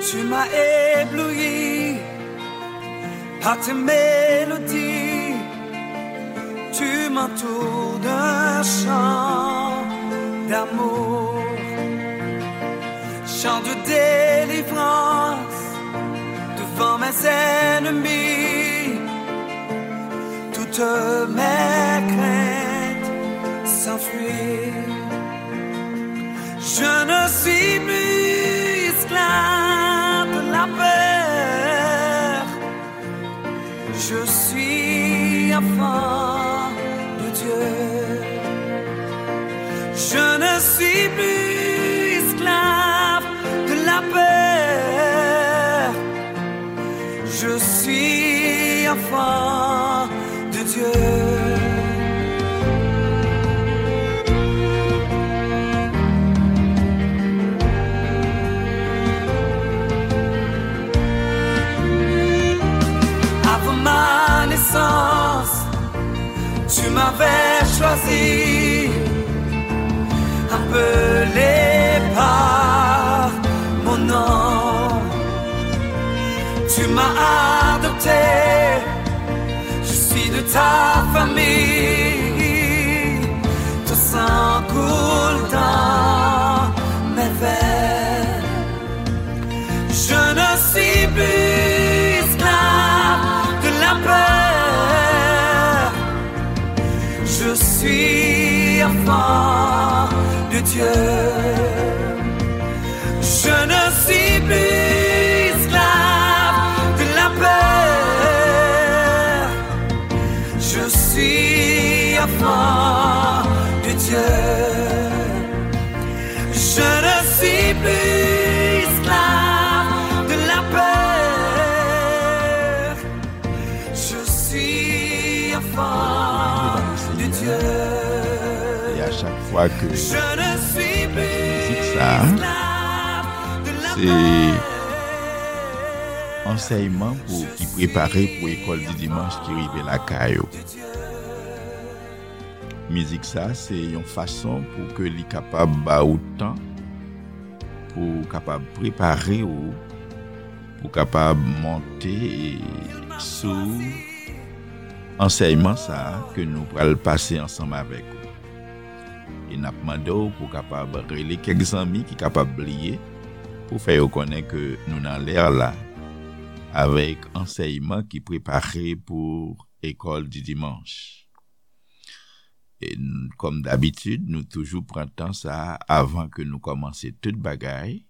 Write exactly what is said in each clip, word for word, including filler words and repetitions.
Tu m'as ébloui par tes mélodies. Tu m'entoures d'un chant d'amour. Chant de délivrance devant mes ennemis. Toutes mes craintes s'enfuient. Je ne suis plus esclave de la peur. Je suis enfant de Dieu. Je ne suis plus esclave de la peur. Je suis enfant de Dieu. Avant ma naissance, tu m'avais choisi, appelé par mon nom. Tu m'as adopté, je suis de ta famille. Ton sang coule dans mes veines. Je ne suis plus esclave de la peur. Je suis enfant de Dieu. Je ne suis plus esclave de la peur. Je suis enfant de Dieu. Je ne suis plus esclave de la peur. Je suis enfant de Dieu. E a chak fwa ke nou tande mizik sa a, se ansèyman pou, ki prepare pou ekòl di dimanch ki rive lakay ou. Mizik sa, se yon fason pou ke li kapab ba ou tan, pou w kapab prepare w, pou w kapab monte sou ansèyman sa a ke nou pral pase ansanm avèk ou. E n ap mande w pou w kapab rele kèk zanmi ki kapab bliye, pou fè yo konnen ke nou nan lè la avèk ansèyman ki prepare pou ekòl di dimanch. E n-, kòm dabitid, nou toujou pran tan sa a avan ke nou kòmanse tout bagay,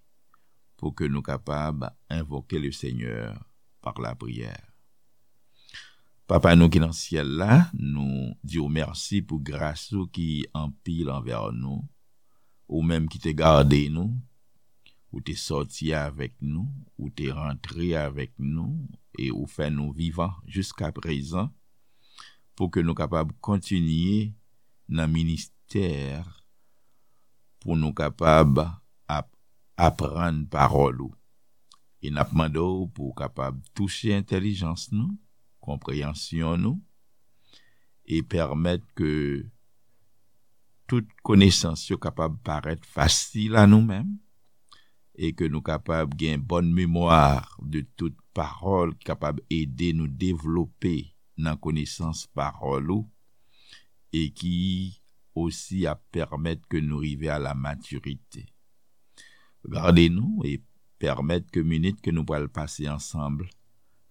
pou ke nou kapab envoke le Senyè pa lapriyè. Papa nou ki nan syèl la, nou di w mèsi pou gras ou ki anpil anvè nou, ou menm ki te gade nou, ou te sòti avèk nou, ou te rantre avèk nou, e ou fè nou vivan jiska prezan, pou ke nou kapab kontinye nan ministè, pou nou kapab ap-, aprann pawòl ou. E n ap mande w pou w kapab touche entèlijans nou, konpreyansyon nou, e pèmèt ke tout konesans yo kapab parèt fasil a nou menm, e ke nou kapab gen bòn memwa de tout pawòl ki kapab ede nou devlope nan konesans pawòl ou, e ki osi ap pèmèt ke nou rive a la matirite. Gade nou e pèmèt ke minit ke nou pral pase ansanm,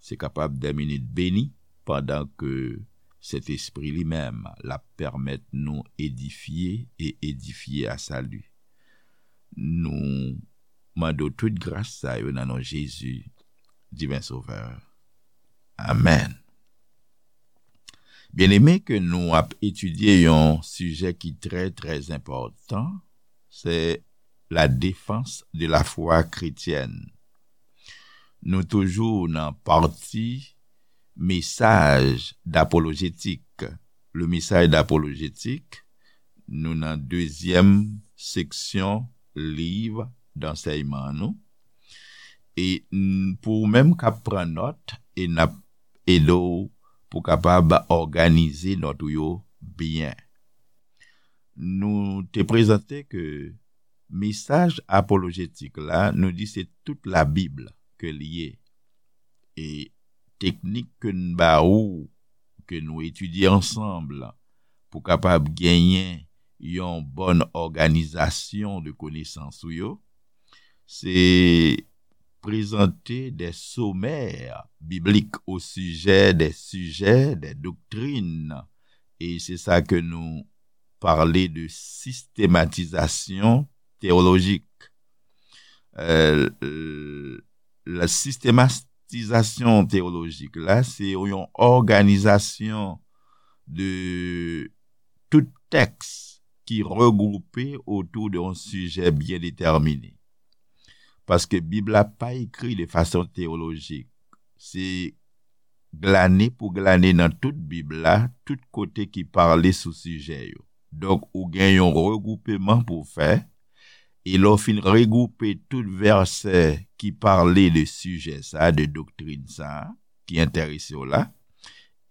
se kapab de minit beni, pandan ke Sentespri li menm l ap pèmèt nou edifye e edifye a sali. Nou mande w tout gras sa yo nan non Jezi, Diven Sovè. Amèn. Byeneme, ke nou ap etidye yon sijè ki trè, trè enpòtan, se la défense de la foi chrétienne. Nou toujou nan pati mesaj dapolojetik. Le mesaj dapolojetik, nou nan dezyèm seksyon liv dansèyman nou. E n-, pou ou menm k ap pran nòt, e n ap ede w pou kapab òganize nòt ou yo byen. Nou te prezante ke Mesaj apolojetik la, nou di se tout Labib ke l ye. E teknik ke n ba ou, ke nou etidye ansanm, pou kapab genyen yon bòn òganizasyon de konesans ou yo, se prezante de somè biblik o sijè de sijè de doktrin. E se sa ke nou pale de sistematizasyon teyolojik. Euh, la sistematizasyon teyolojik la, se yon òganizasyon de tout tèks ki regwoupe otou de yon sijè byen detèmine. Paske Bib la pa ekri de fason teyolojik. Se glane pou glane nan tout Bib la, tout kote ki pale sou sijè yo. Donk, ou gen yon regwoupeman pou w fè, e lè w fin regwoupe tout vèsè ki pale de sijè sa, de doktrin sa, ki enterese w la,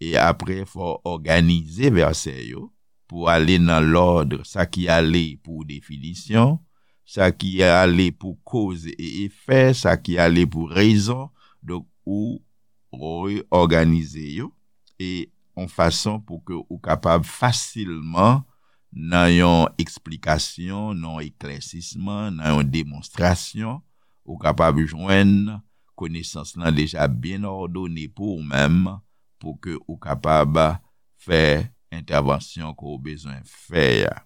e apre, fò w òganize vèsè yo pou ale nan lòd, sa ki ale pou definisyon, sa ki ale pou koz e efè, sa ki ale pou rezon. Donk, ou reyòganize yo e yon fason pou ke ou kapab fasilman, nan yon eksplikasyon, nan yon eklèsisman, nan yon demonstrasyon, ou kapab jwenn konesans lan deja byen òdone pou ou menm, pou ke ou kapab fè entèvansyon ke w bezwen fè a.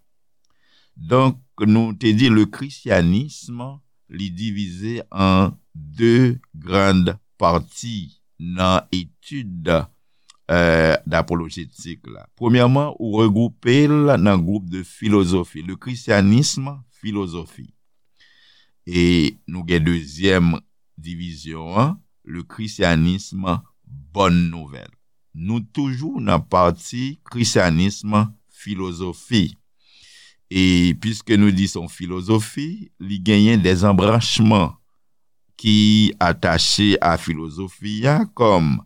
Donk, nou te di le christianisme, li divize an de grann pati nan etid, euh, d'apolojetik la. Premyèman, ou regwoupe l nan gwoup de filozofi, le christianisme philosophie. E nou gen dezyèm divizyon an, le christianisme bonne nouvelle. Nou toujou nan pati christianisme philosophie. E piske nou di se yon filozofi, li genyen de anbranchman ki atache a filozofi a, kòm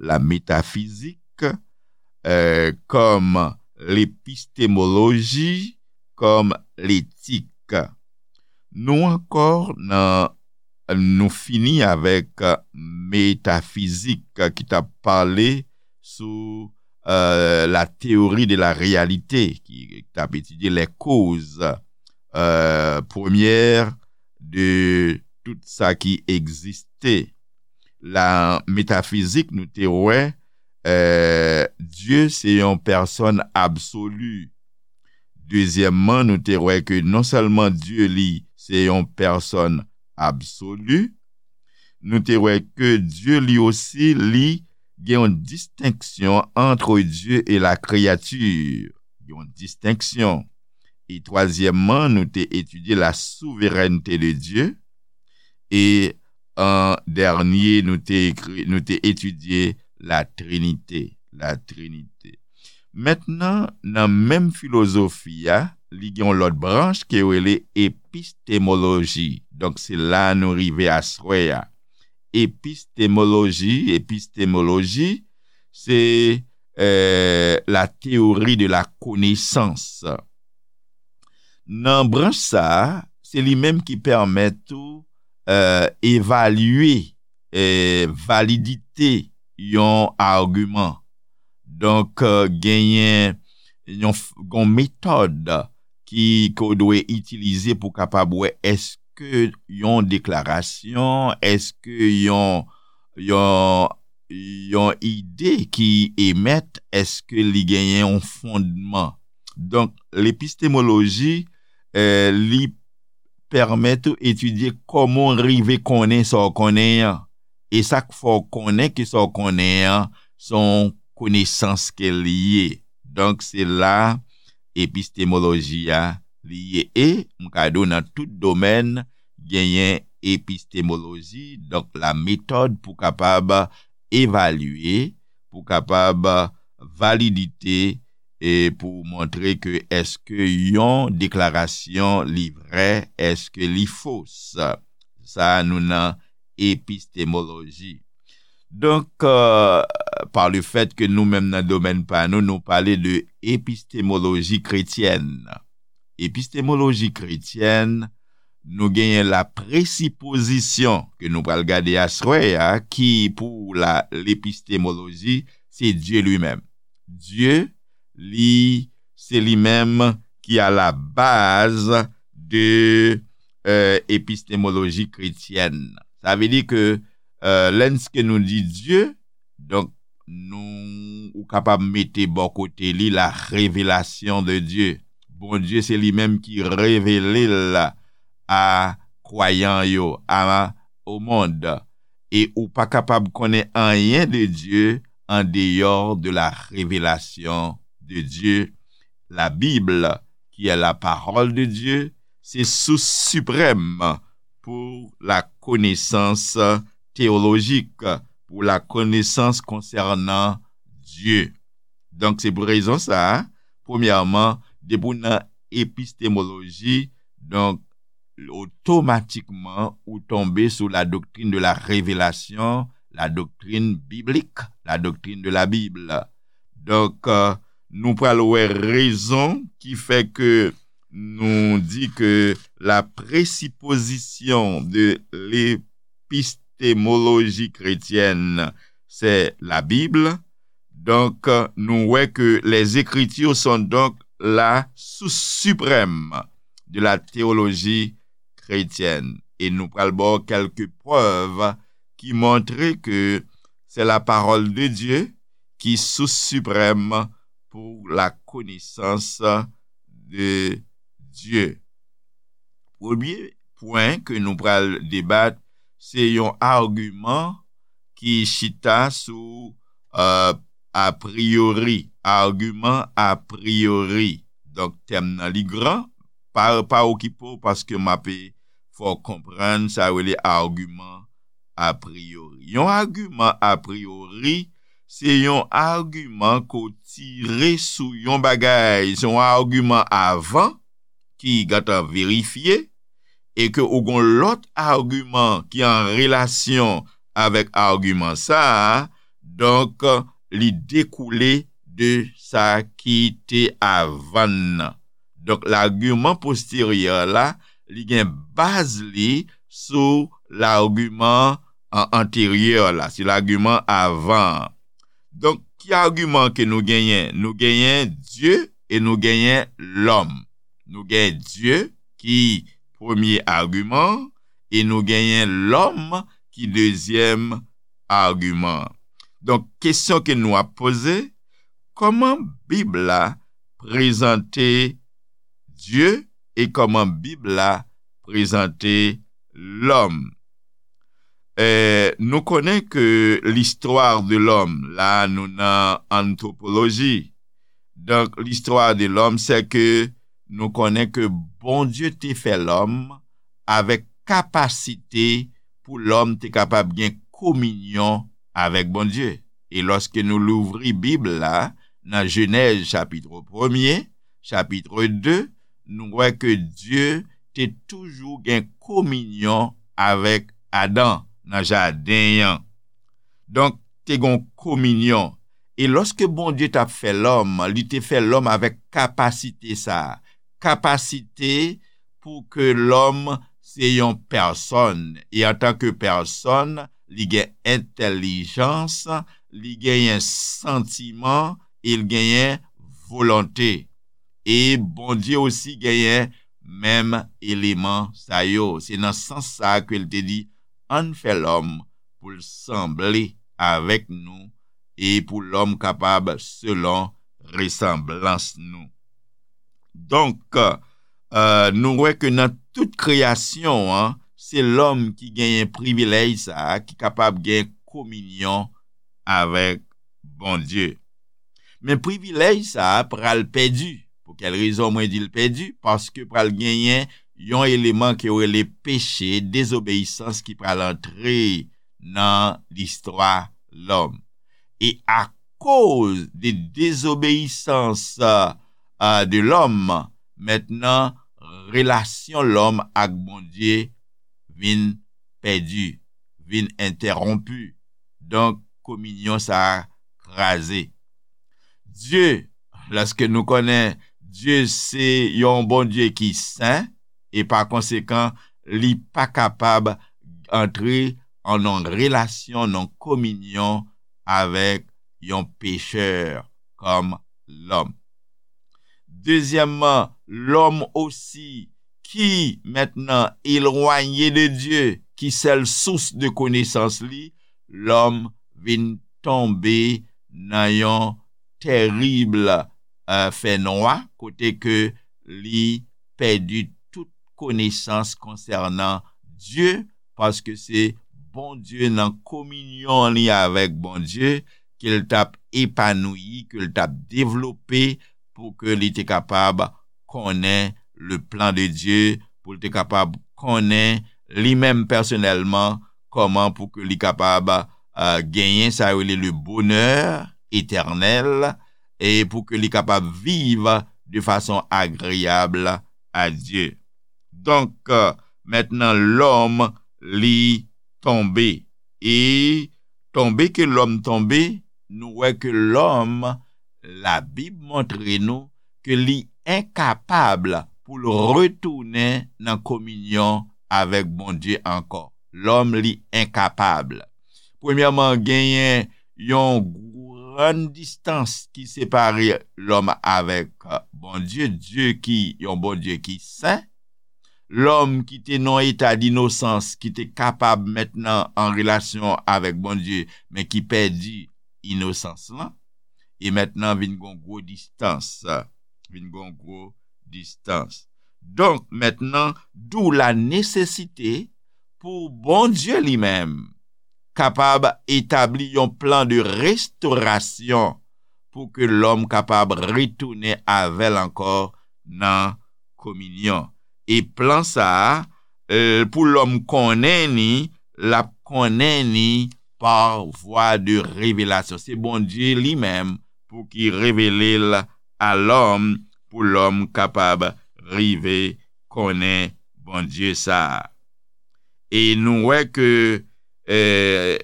la metafizik, euh, kòm lepistemoloji, kòm letik. Nou ankò nan, nou fini avèk metafizik ki t ap pale sou, euh, la théorie de la réalité, ki t ap etidye les causes, euh, premières de tout sa ki egziste. La metafizik, nou te wè, euh, Dye se yon pèsòn absoli. Dezyèmman, nou te wè ke non sèlman Dye li se yon pèsòn absoli, nou te wè ke Dye li osi, li gen yon distenksyon entre Dieu et la créature. Yon distenksyon. E twazyèmman, nou te etidye la souveraineté de Dieu. E an dènye, nou te ekri, nou te etidye la Trinité. La Trinité. Mentnan, nan menm filozofi a, li gen yon lòt branch ke yo rele epistemoloji. Donk, se la nou rive aswè a. Epistemoloji, epistemoloji, se, euh, la théorie de la connaissance. Nan branch sa a, se li menm ki pèmèt ou, euh, evalye, euh, validite yon agiman. Donk, euh, genyen yon, f- yon metòd ki, ke w dwe itilize pou kapab wè èske yon deklarasyon, èske yon, yon, yon ide ki emèt, èske li genyen yon fondman. Donk, lepistemoloji, euh, li pèmèt ou etidye kòman w rive konnen sa w konnen an. E sa k fè w konnen ke sa w konnen an, se yon konesans ke li ye. Donk, se la epistemoloji a li ye. E, m ka di w nan tout domèn, genyen epistemoloji, donk la metòd pou kapab evalye, pou kapab validite, e pou montre ke èske yon deklarasyon li vrè, èske li fos. Sa a nou nan epistemoloji. Donk, euh, pa le fèt ke nou menm nan domèn pa nou, nou pale de epistemoloji kretyèn. Epistemoloji kretyèn, Nou genyen la presipozisyon ke nou pral gade aswè a, ki pou la lepistemoloji, se Dye li menm. Dye, li, se li menm ki a la baz de euh, epistemologie chrétienne. Sa vle di ke euh, lènske nou di Dye, donk nou ou kapab mete bò kote li la revelasyon de Dye. Bondye se li menm ki revele l a kwayan yo, a o mond. E ou pa kapab konnen anyen de Dye an deyò de la revelasyon de Dye. La Bible, qui est la parole de Dieu, se sous siprèm pou la konesans teyolojik, pou la konesans konsènan Dye. Donk, se pou rezon sa a, premyèman, depi w nan epistemoloji, donk, otomatikman, ou tonbe sou la doktrin de la revelasyon, la doktrin biblik, la doktrin de la Bible. Donk, euh, nou pral wè rezon ki fè ke nou di ke la presipozisyon de lepistemoloji kretyèn, se la Bible. Donk, nou wè ke les Écritures sont donc la source suprême de la théologie chrétienne. E nou pral ba w kèlke prèv ki montre ke se la parole de Dieu ki sous siprèm pou la konesans de Dye. Premye pwen ke nou pral debat, se yon agiman ki chita sou euh, a priori, agiman a priori. Donk, tèm nan li gran, pa, pa okipe w paske m ape fè w konprann sa yo rele agiman a priori. Yon agiman a priori, se yon agiman ke w tire sou yon bagay, se yon agiman avan ki gentan verifye, e ke ou gon lòt agiman ki an relasyon avèk agiman sa a, donk, li dekoule de sa ki te avan nan. Donk, lagiman posteryè la, li gen baz li sou lagiman an-, anteryè la, se lagiman avan an. Donk, ki agiman ke nou genyen? Nou genyen Dye e nou genyen lòm. Nou genyen Dye ki premye agiman e nou genyen lòm ki dezyèm agiman. Donk, kesyon ke nou ap poze, kòman Bib la prezante Dye e kòman Bib la prezante lòm? Eh, nou konnen ke l'histoire de l'homme, la nou nan antwopoloji. Donk, l'histoire de l'homme, se ke nou konnen ke Bondye te fè lòm avèk kapasite pou lòm te kapab gen kominyon avèk Bondye. E lòske nou louvri Bib la, nan Jenèz chapit premye, chapit de, nou wè ke Dye te toujou gen kominyon avèk Adan nan jaden an. Donk, te gon kominyon. E lòske Bondye t ap fè lòm, li te fè lòm avèk kapasite sa a. Kapasite pou ke lòm se yon pèsòn. E antanke pèsòn, li gen entèlijans, li genyen santiman, e li genyen volonte. E Bondye osi genyen menm eleman sa yo. Se nan sans sa a ke l te di, ann fè lòm pou l sanble avèk nou e pou lòm kapab selon resanblans nou. Donk, euh, nou wè ke nan tout kreyasyon an, se lòm ki genyen privilèj sa a, ki kapab gen kominyon avèk Bondye. Men privilèj sa a pral pèdi. Pou kèl rezon mwen di l pèdi? Paske pral genyen yon eleman ke yo rele peche, dezobeyisans ki pral antre nan listwa lòm. E akoz de dezobeyisans, euh, de lòm, mentnan relasyon lòm ak Bondye vin pèdi, vin entèwonpi. Donk, kominyon sa a kraze. Dye, lòske nou konnen Dye se yon Bondye ki sen, e pa konsekan, li pa kapab antre an yon relasyon, yon kominyon avèk yon pechè kòm lòm. Dezyèmman, lòm osi ki mentnan elwanye de Dye, ki sèl sous de konesans li, lòm vin tonbe nan yon tèrib, eh, fènwa, kote ke li pèdi tout konesans konsènan Dye, paske se Bondye nan kominyon li avèk Bondye ke l t ap epanouyi, ke l t ap devlope pou ke li te kapab konnen le plan de Dye, pou l te kapab konnen li menm pèsonèlman kòman pou ke li kapab, eh, genyen sa yo rele le bonheur éternel, e pou ke li kapab viv de fason agreyab a Dye. Donk, mentnan lòm li tonbe. E tonbe ke lòm tonbe, nou wè ke lòm, Labib montre nou ke li enkapab pou l retounen nan kominyon avèk Bondye ankò. Lòm li enkapab. Premyèman, genyen yon grann distans ki separe lòm avèk Bondye, Dye ki yon Bondye ki sen. Lòm ki te nan yon eta dinosans, ki te kapab mentnan an relasyon avèk Bondye, men ki pèdi inosans lan, e mentnan vin gon gwo distans, vin gon gwo distans. Donk, mentnan, d'où la nécessité pou Bondye li menm kapab etabli yon plan de restorasyon pou ke lòm kapab retounen avè l ankò nan kominyon. E plan sa a, eh, pou lòm konnen ni, l ap konnen ni pa vwa de revelasyon. Se Bondye li menm pou ki revele l a lòm, pou lòm kapab rive konnen Bondye sa a. E nou wè ke, eh,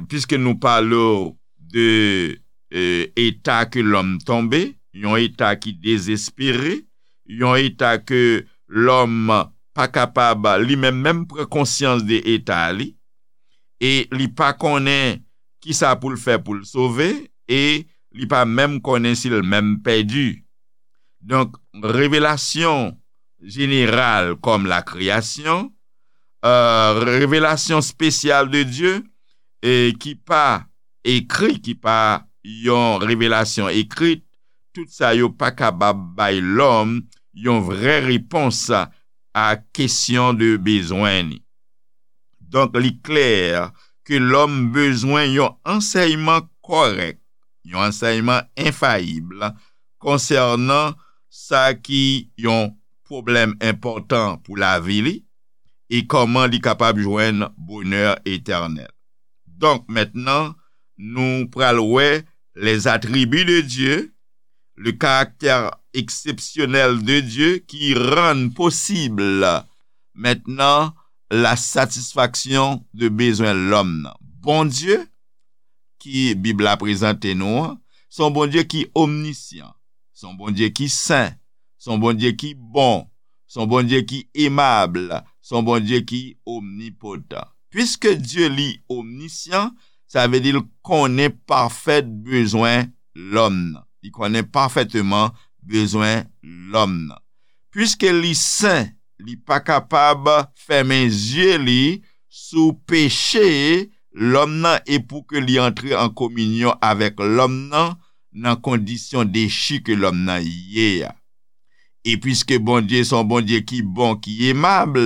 piske nou pale w de, eh, eta ke lòm tonbe, yon eta ki dezespere, yon eta ke lòm pa kapab li menm menm pran konsyans de eta li, e li pa konnen kisa pou l fè pou l sove, e li pa menm konnen si l menm pèdi. Donk, revelasyon jeneral kòm la kreyasyon, eh, revelasyon espesyal de Dye, e ki pa ekri, ki pa yon revelasyon ekri, tout sa yo pa kapab bay lòm yon vrè repons a kesyon de bezwen ni. Donk, li klè ke lòm bezwen yon ansèyman kòrèk, yon ansèyman enfayib konsènan sa ki yon pwoblèm enpòtan pou lavi li e kòman li kapab jwenn bonè etènèl. Donk, mentnan, nou pral wè les attributs de Dieu, le caractère exceptionnel de Dieu qui rend possible maintenant la satisfaction de bezwen lòm nan. Bondye, ki Bib la prezante nou an, se yon Bondye ki omnisyan, se yon Bondye ki sen, se yon Bondye ki bon, se yon Bondye ki emab, se yon Bondye ki omnipotan. Piske Dye li omnisyan, sa vle di l konnen pafèt bezwen lòm nan. Li konnen pafèteman bezwen lòm nan. Piske li sen, li pa kapab fèmen zye li sou peche lòm nan e pou ke li antre an kominyon avèk lòm nan, nan kondisyon dechi ke lòm nan ye a. E piske Bondye se yon Bondye ki bon, ki emab,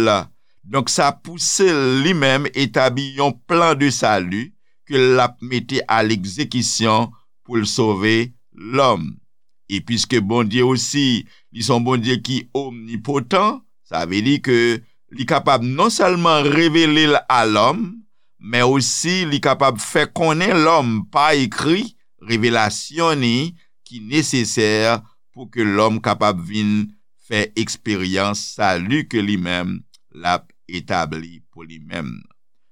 donk sa pouse l li menm etabli yon plan de sali ke l ap mete a legzekisyon pou l sove lòm. E piske Bondye osi, li se yon Bondye ki omnipotan, sa vle di ke li kapab non sèlman revele l a lòm, men osi li kapab fè konnen lòm pa ekri revelasyon ni ki nesesè pou ke lòm kapab vin fè eksperyans sali ke li menm l ap etabli pou li menm.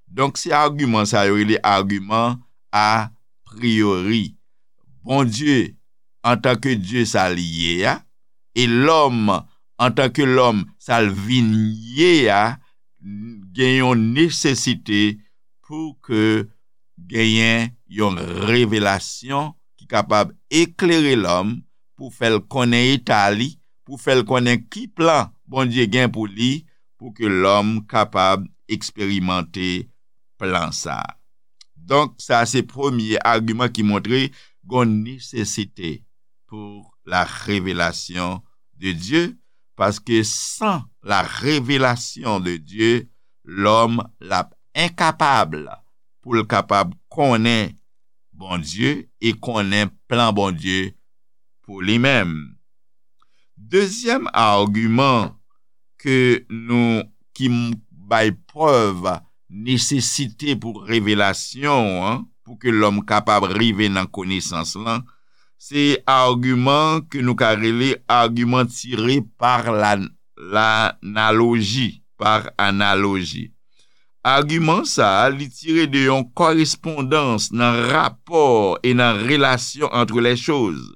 Donk, se agiman sa yo rele agiman a priori. Bondye, antanke Dye sa li ye a, e lòm, antanke lòm sa l vin ye a, gen yon nesesite pou ke genyen yon revelasyon ki kapab eklere lòm, pou fè l konnen eta li, pou fè l konnen ki plan Bondye gen pou li, pou ke lòm kapab eksperimante plan sa a. Donk, sa se premye agiman ki montre gon nesesite pour la révélation de Dieu, paske san la revelasyon de Dye, lòm l ap enkapab pou l kapab konnen Bondye e konnen plan Bondye pou li menm. Dezyèm agiman ke nou ki m- bay prèv nesesite pou revelasyon an, pou ke lòm kapab rive nan konesans lan, se agiman ke nou ka rele agiman tire par la, l'analoji, par analoji. Agiman sa a, li tire de yon korespondans nan rapò e nan relasyon entre les choses.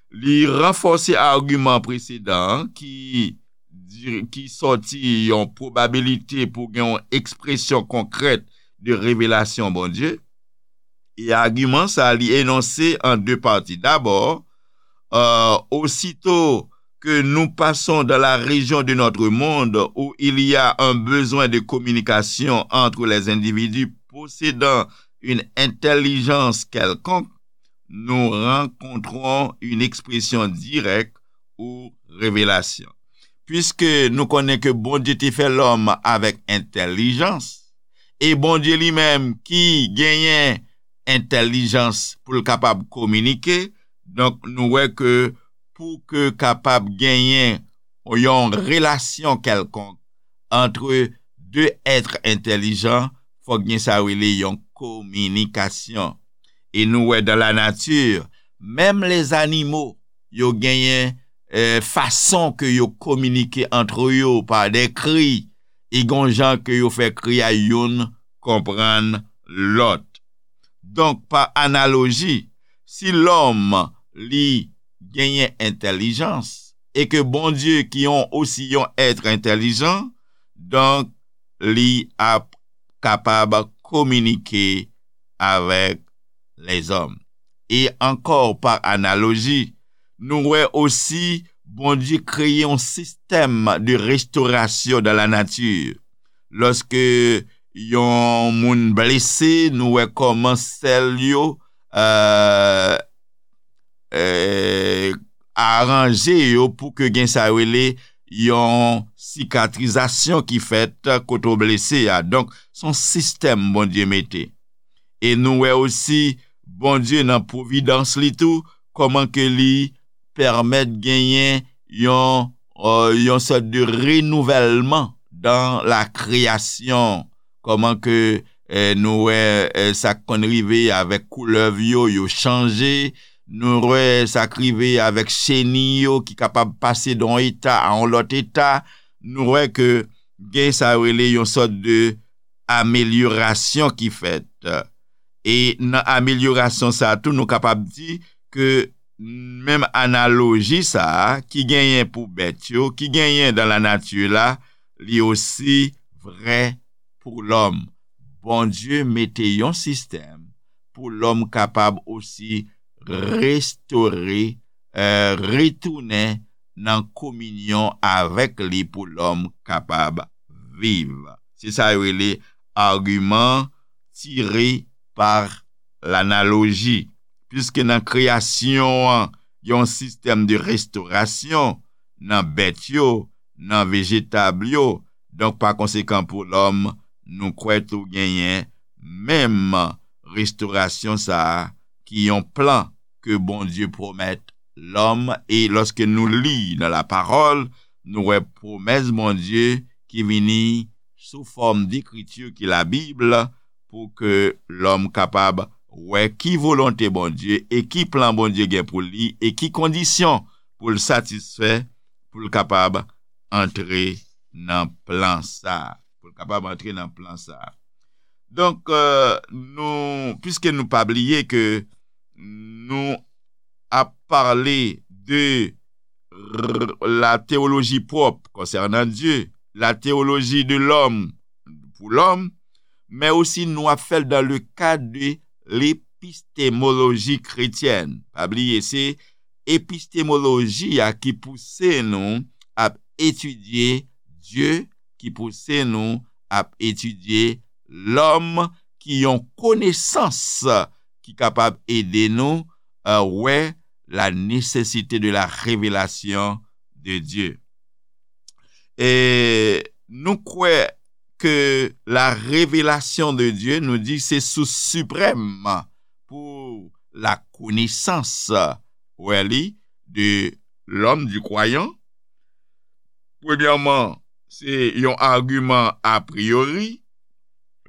Li ranfòse agiman presedan an ki, di- ki sòti yon pwobabilite pou gen yon ekspresyon konkrèt de revelasyon Bondye. E agiman sa a, li enonse an de pati. Dabò, euh, aussitôt que nous passons dans la région de notre monde où il y a un besoin de communication entre les individus possédant une intelligence quelconque, nous rencontrons une expression directe ou révélation. Puiske nou konnen ke Bondye te fè lòm avèk entèlijans, e Bondye li menm ki genyen entèlijans pou l kapab kominike, donk nou wè ke pou ke kapab genyen yon relasyon kèlkonk antre de èt entèlijan, fòk gen sa yo rele yon kominikasyon. E nou wè dan la nati, menm lèzanimo, yo genyen eh, fason ke yo kominike antre yo pa de kri, e gon jan ke yo fè kri a youn konprann lòt. Donk, pa analoji, si lòm li genyen entèlijans, e ke Bondye ki yon osi yon èt entèlijan, donk li ap kapab kominike avèk lèzòm. E ankò, pa analoji, nou wè osi Bondye kreye yon sistèm de restorasyon dan la nati. Lòske yon moun blese, nou wè kòman sèl yo, euh, eh, aranje yo pou ke gen sa yo rele yon sikatrizasyon ki fèt kote w blese a. Donk, se yon sistèm Bondye mete. E nou wè osi Bondye nan pwovidans li tou, kòman ke li pèmèt genyen yon, euh, yon sòt de renouvèlman dan la kreyasyon. Kòman ke, eh, nou wè, eh, sa k konn rive avèk koulèv yo, yo chanje. Nou wè sa k rive avèk cheni yo ki kapab pase de yon eta a yon lòt eta. Nou wè ke gen sa yo rele yon sòt de amelyorasyon ki fèt. E nan amelyorasyon sa a tou, nou kapab di ke menm analoji sa a ki genyen pou bèt yo, ki genyen dan la nati la, li osi vrè pou lòm. Bondye mete yon sistèm pou lòm kapab osi restore, eh, retounen nan kominyon avèk li pou lòm kapab viv. Se sa yo rele agiman tire pa lanaloji. Piske nan kreyasyon an, gen yon sistèm de restorasyon nan bèt yo, nan vejetab yo. Donk, pa konsekan, pou lòm, nou kwè tou genyen menm restorasyon sa a, ki yon plan ke Bondye pwomèt lòm. E lòske nou li nan lapawòl, nou wè pwomès Bondye ki vini sou fòm dekriti ki Labib, pou ke lòm kapab wè ki volonte Bondye e ki plan Bondye gen pou li e ki kondisyon pou l satisfè pou l kapab antre nan plan sa a. Pou l kapab antre nan plan sa a. Donk, euh, nou, piske nou pa bliye ke nou ap pale de r- la théologie propre concernant Dieu, la théologie de l'homme pou lòm, men osi nou ap fè l dans le cadre de l'épistémologie chrétienne. Pa bliye, se epistemoloji a ki pouse nou ap etidye Dye, ki pouse nou ap etidye lòm, ki yon konesans ki kapab ede nou, euh, wè la nécessité de la révélation de Dieu. E nou kwè ke la révélation de Dieu, nou di se sous siprèm pou la konesans, wè li, de l'homme, du croyant. Premyèman, se yon agiman a priori.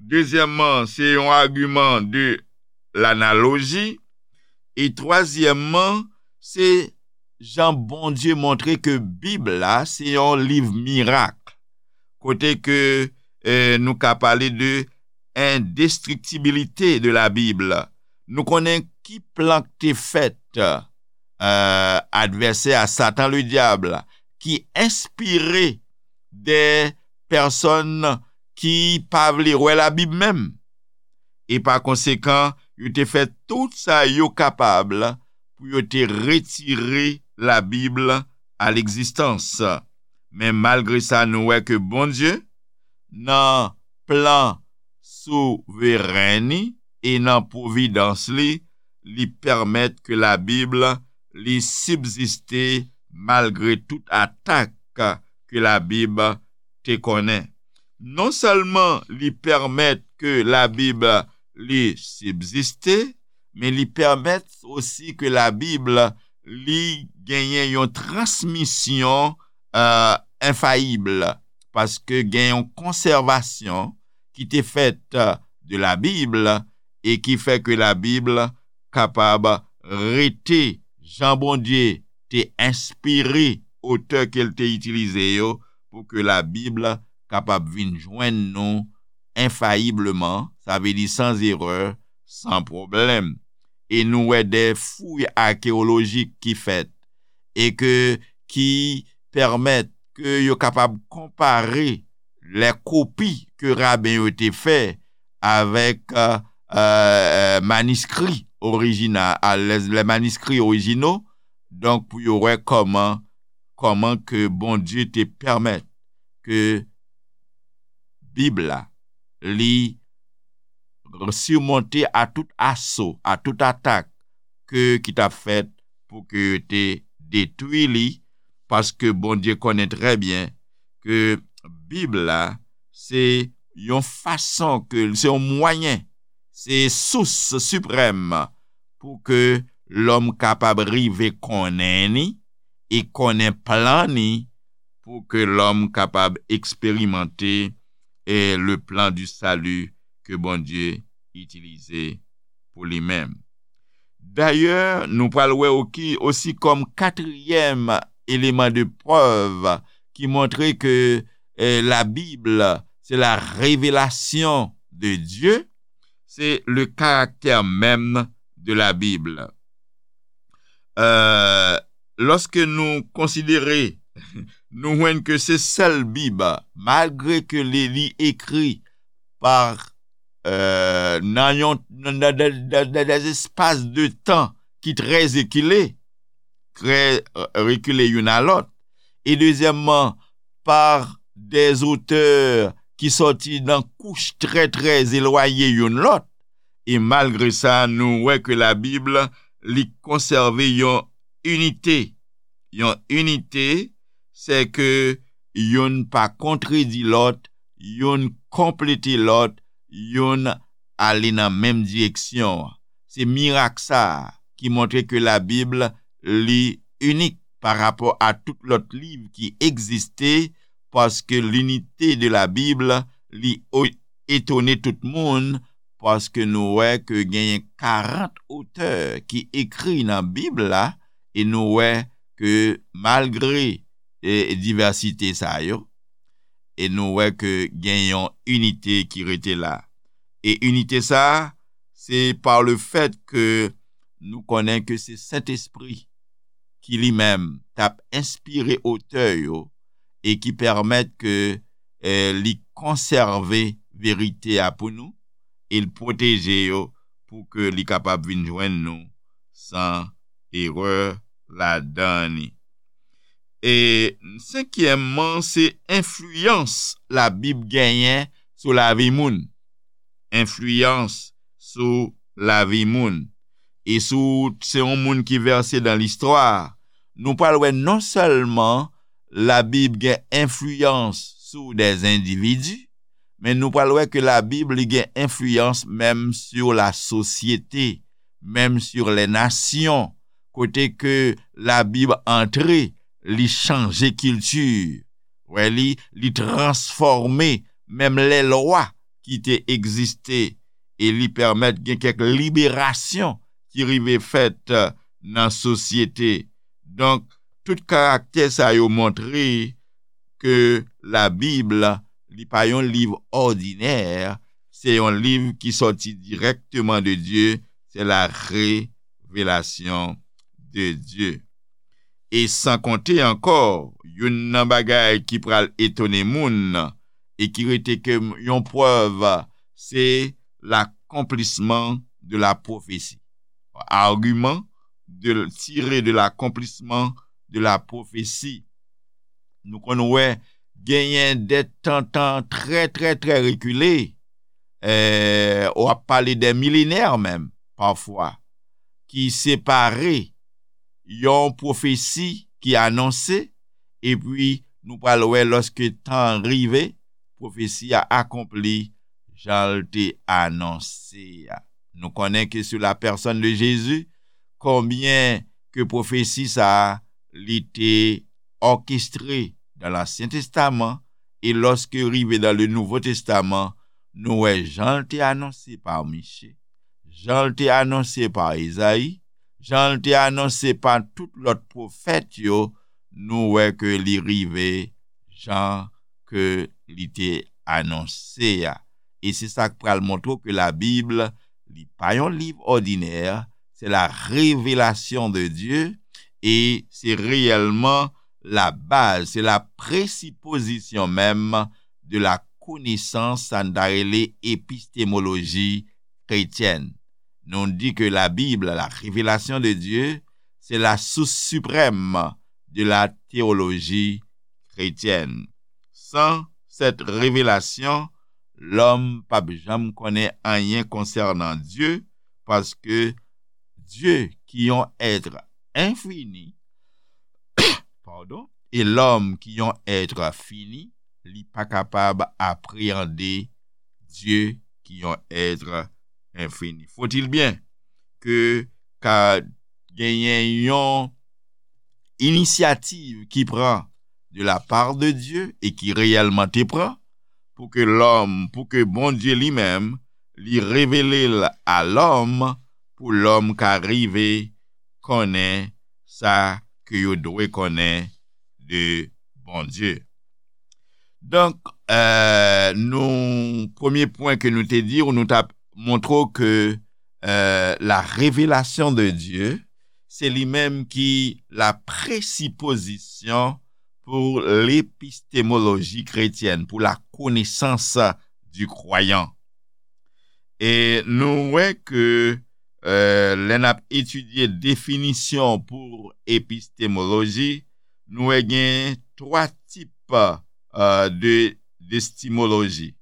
Dezyèmman, se yon agiman de lanaloji. E twazyèmman, se jan Bondye montre ke Bib la se yon liv mirak, kote ke, eh, nou ka pale de indestrictibilité de la Bible. Nou konnen ki plan k te fèt, eh, advèsè a, Satan Ledyab, ki enspire de pèsòn ki pa vle wè Labib menm. E pa konsekan, yo te fè tout sa yo kapab pou yo te retire Labib a legzistans. Men malgre sa, nou wè ke Bondye, nan plan souveren li e nan pwovidans li, li pèmèt ke Labib li sibziste malgre tout atak ke Labib te konnen. Non sèlman li pèmèt ke Labib li sibziste, men li pèmèt osi ke Labib li genyen yon transmisyon, euh, enfayib, paske gen yon konsèvasyon ki te fèt, euh, de Labib e ki fè ke Labib kapab rete jan Bondye te enspire otè ke l te itilize yo pou ke Labib kapab vin jwenn nou enfayibleman, sa vle di sans erreur, sans problème. E nou wè de fouy akeyolojik ki fèt e ke, ki pèmèt ke yo kapab konpare lè kopi ke raben yo te fè avèk, euh, euh, maniskri orijinal, lè, lè maniskri orijino, donk pou yo wè kòman, kòman ke Bondye te pèmèt ke Bib la, li simonte a tout aso, a tout atak ke, ki t ap fèt pou ke yo te detwi li, paske Bondye konnen trè byen ke Bib la, se yon fason ke, se yon mwayen, se sous siprèm pou ke lòm kapab rive konnen ni e konnen plan ni pou ke lòm kapab eksperimante, eh, le plan du salut ke Bondye itilize pou li menm. Dayè, nou pral wè oki, osi kòm katriyèm eleman de prèv ki montre ke, eh, la Bible, c'est la révélation de Dieu, c'est le caractère même de la Bible. Euh, lòske nou konsidere, nou jwenn ke se sèl Bib, malgre ke li, li ekri pa, euh, nan yon, nan, nan, nan, nan des espaces de temps ki trè ekile, trè, euh, rekile youn a lòt. E dezyèmman, pa des auteurs ki sòti nan kouch trè, trè elwaye youn lòt. E malgre sa, nou wè ke la Bib, li konsève yon inite. Yon inite, se ke youn pa kontredi lòt, youn konplete lòt, youn ale nan menm direksyon an. Se mirak sa a ki montre ke la Bib, li inik pa rapò a tout lòt liv ki egziste, paske l'inité de la Bible, li o-, etone tout moun, paske nou wè ke genyen karant otè ki ekri nan Bib la, e nou wè ke malgre, e, divèsite sa yo, e nou wè ke gen yon inite ki rete la. E inite sa a, se pa le fèt ke nou konnen ke se Sentespri ki li menm t ap enspire otè yo e ki pèmèt ke, eh, li konsève verite a pou nou, e l pwoteje yo pou ke li kapab vin jwenn nou san erè ladan li. E senkyèmman, se enfliyans Labib genyen sou lavi moun. Enfliyans sou lavi moun. E si w se yon moun ki vèse dan listwa, nou pral wè non sèlman Labib gen enfliyans sou dè endividi, men nou pral wè ke Labib li gen enfliyans menm sur la sosyete, menm sur les nations, kote ke Labib antre, li chanje kilti. Wè li, li transfòme menm lè lwa ki te egziste e li pèmèt gen kèk liberasyon ki rive fèt nan sosyete. Donk, tout karaktè sa yo montre ke Labib, li pa yon liv òdinè, se yon liv ki sòti dirèkteman de Dye, se la révélation de Dieu. E san konte ankò, youn nan bagay ki pral etone moun e ki rete ke yon prèv, se l'accomplissement de la prophétie. Argument de, tiré de l'accomplissement de la prophétie. Nou konn wè genyen dè tan, tan trè, trè, trè rekile, eh, w ap pale dè milenè menm, pafwa, ki separe yon pwofesi ki anonse, epi nou pral wè lòske tan an rive, pwofesi a akonpli jan l te anonse a. Nou konnen ke sou la pèsòn de Jezi, konbyen ke pwofesi sa a, li te òkestre dan Lansyen Testaman, e lòske rive dan le Nouvo Testaman, nou wè jan l te anonse pa Miche, jan l te anonse pa Ezayi, jan l te anonse pa tout lòt pwofèt yo, nou wè ke li rive jan ke li te anonse a. E se sa k pral montre w ke Labib, li pa yon liv òdinè, se la révélation de Dieu, e se reyèlman la baz, se la presipozisyon menm de la konesans, sa n ta rele epistemoloji kretyèn. Nou di ke Labib, la révélation de Dieu, c'est la source suprême de la théologie chrétienne. Sans cette révélation, lòm p ap janm konnen anyen konsènan Dye, paske Dye, ki yon èt enfini, padon, e lòm, ki yon èt fini, li pa kapab apreyande Dye, ki yon èt enfini. Faut-il bien ke ka genyen yon inisyativ ki pran de la part de Dieu e ki reyèlman te pran, pou ke lòm, pou ke Bondye li menm, li revele l a lòm, pou lòm ka rive konnen sa ke yo dwe konnen de Bondye. Donk, eh, nou, premye pwen ke nou te di, nou t ap montre w ke, eh, la révélation de Dieu, se li menm ki la presipozisyon pou lepistemoloji kretyèn, pou la connaissance du croyant. E nou wè ke, eh, lè n ap etidye definisyon pou epistemoloji, nou wè gen twa tip, eh, de, d'epistemoloji,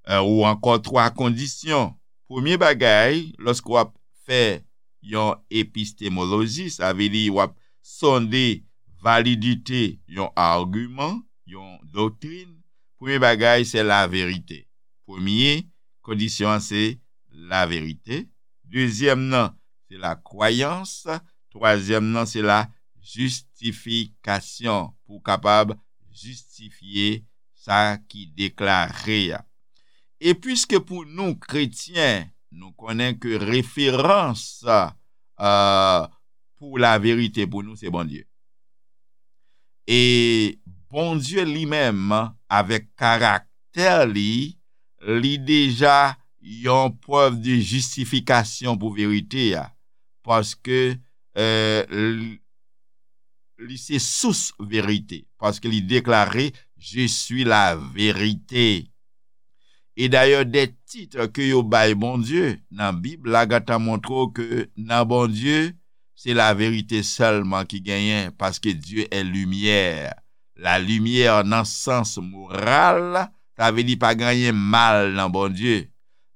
eh, ou ankò twa kondisyon. Premye bagay, lòske w ap fè yon epistemoloji, sa vle di w ap sonde validite yon agiman, yon doktrin, premye bagay, se laverite. Premye kondisyon an, se laverite. Dezyèm nan, se lakwayans. Twazyèm nan, se la jistifikasyon, pou w kapab jistifye sa ki deklare a. E piske pou nou, kretyen, nou konnen ke referans, eh, pou laverite pou nou, se Bondye. E Bondye li menm, avèk karaktè li, li deja yon prèv de jistifikasyon pou verite a. Paske, eh, li, li se sous verite. Paske li deklare, "Je suis la vérité." E dayè, de tit ke yo bay Bondye nan Bib la gentan montre w ke nan Bondye, se laverite sèlman ki genyen, paske Dieu est lumière. La lumière nan sans moral, sa vle di pa gen anyen mal nan Bondye.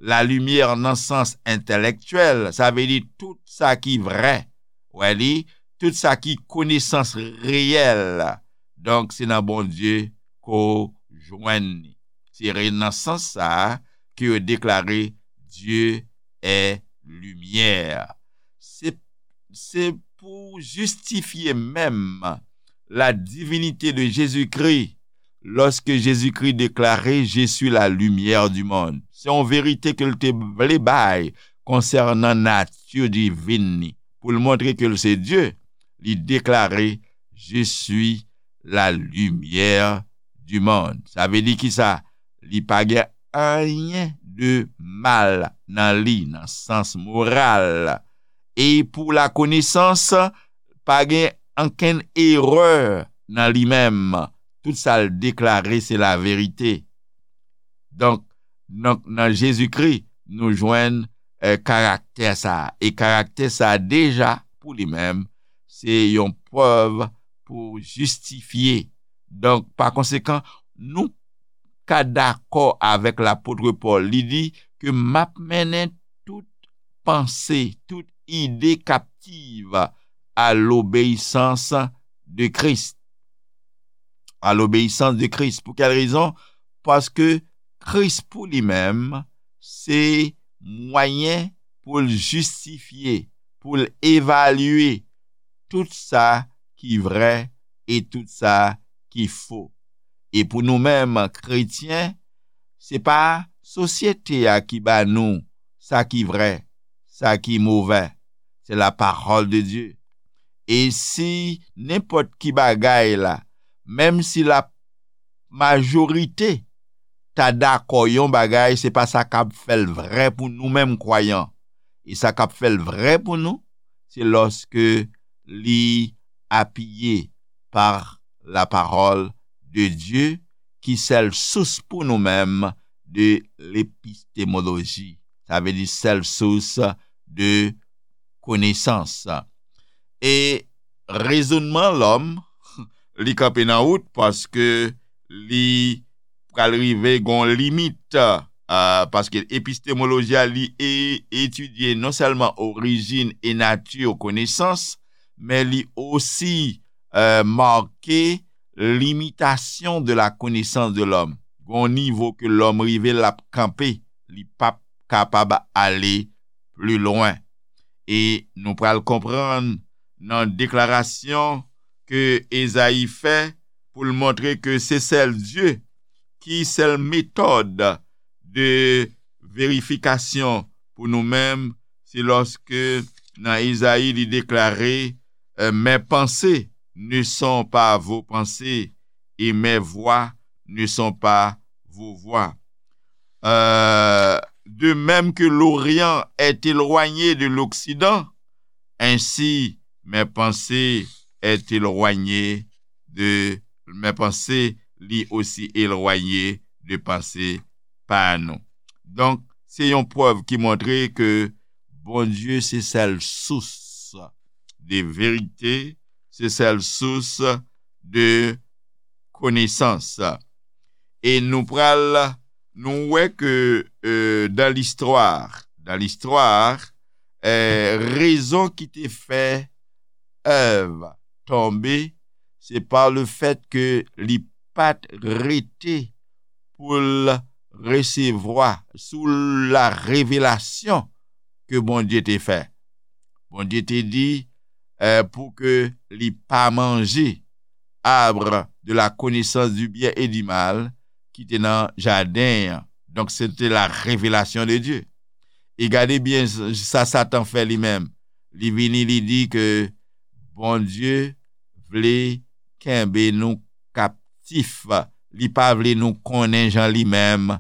La lumière nan sans entèlektyèl, sa vle di tout sa ki vrè. Wè li, tout sa ki konesans reyèl. Donk, se nan Bondye ke w jwenn li. Se re-, nan sans sa a ke yo deklare Dieu est lumière. Se, se pou jistifye menm la divinité de Jésus-Christ, lorsque Jésus-Christ déclarait, Je suis la lumière du monde. Se yon verite ke l te vle bay konsènan nati divin li. Pou l montre ke l se Dye, li deklare, Je suis la lumière du monde. Sa vle di ki sa? Li pa gen anyen de mal nan li, nan sans moral. E pou lakonesans, pa gen ankenn erè nan li menm. Tout sa l deklare, se laverite. Donk, nan, nan Jezikri, nou jwenn eh, karaktè sa a. E karaktè sa a, deja, pou li menm, se yon prèv pou jistifye. Donk, pa konsekan, nou ka dakò avèk lapot Pòl. Li di ke m ap mennen tout panse, tout ide kaptiv à l'obéissance de Christ. À l'obéissance de Christ. Pou kèl rezon? Paske Kris pou li menm, se mwayen pou l jistifye, pou l evalye tout sa ki vrè e tout sa ki fo. E pou nou menm, kretyen, se pa sosyete a ki ba nou sa ki vrè, sa ki movè. Se la parole de Dieu. E si nenpòt ki bagay la, menm si la majorite ta dakò yon bagay, se pa sa k ap fè l vrè pou nou menm kwayan. E sa k ap fè l vrè pou nou, se lòske li apiye par la parole de Dieu, ki sèl sous pou nou menm de lepistemoloji. Sa vle di sèl sous de konesans. E rezonman lòm, li kanpe nan wout paske li pral rive gon limit, ah, paske epistemoloji a, li e-, etidye non sèlman orijin e nati konesans, men li osi, eh, make limitasyon de la connaissance de l'homme. Gon nivo ke lòm rive, l ap kanpe, li p ap kapab ale pli lwen. E nou pral konprann nan deklarasyon ke Ezayi fè pou l montre ke se sèl Dye ki sèl metòd de verifikasyon pou nou menm, se lòske nan Ezayi li deklare, eh, Mes pensées ne sont pas vos pensées, et mes voies ne sont pas vos voies. Euh, de même que l'Orient est éloigné de l'Occident, ainsi mes pensées est éloigné de, mes pensées li osi elwaye de panse pa nou. Donk, se yon prèv ki montre ke Bondye se sèl sous de verite, se sèl sous de konesans. E nou pral, nou wè ke, euh, dans l'histoire, dans l'histoire, eh, rezon ki te fè Èv tonbe, se pa lefèt ke li pa t rete pou l resevwa sou la revelasyon ke Bondye te fè. Bondye te di, eh, pou ke li pa manje arbre de la connaissance du bien et du mal ki te nan jaden an. Donk, se te la revelasyon de Dye. E gade byen s-, sa Satan fè li menm. Li vini, li di ke Bondye vle kenbe nou kaptif. Li pa vle nou konnen jan li menm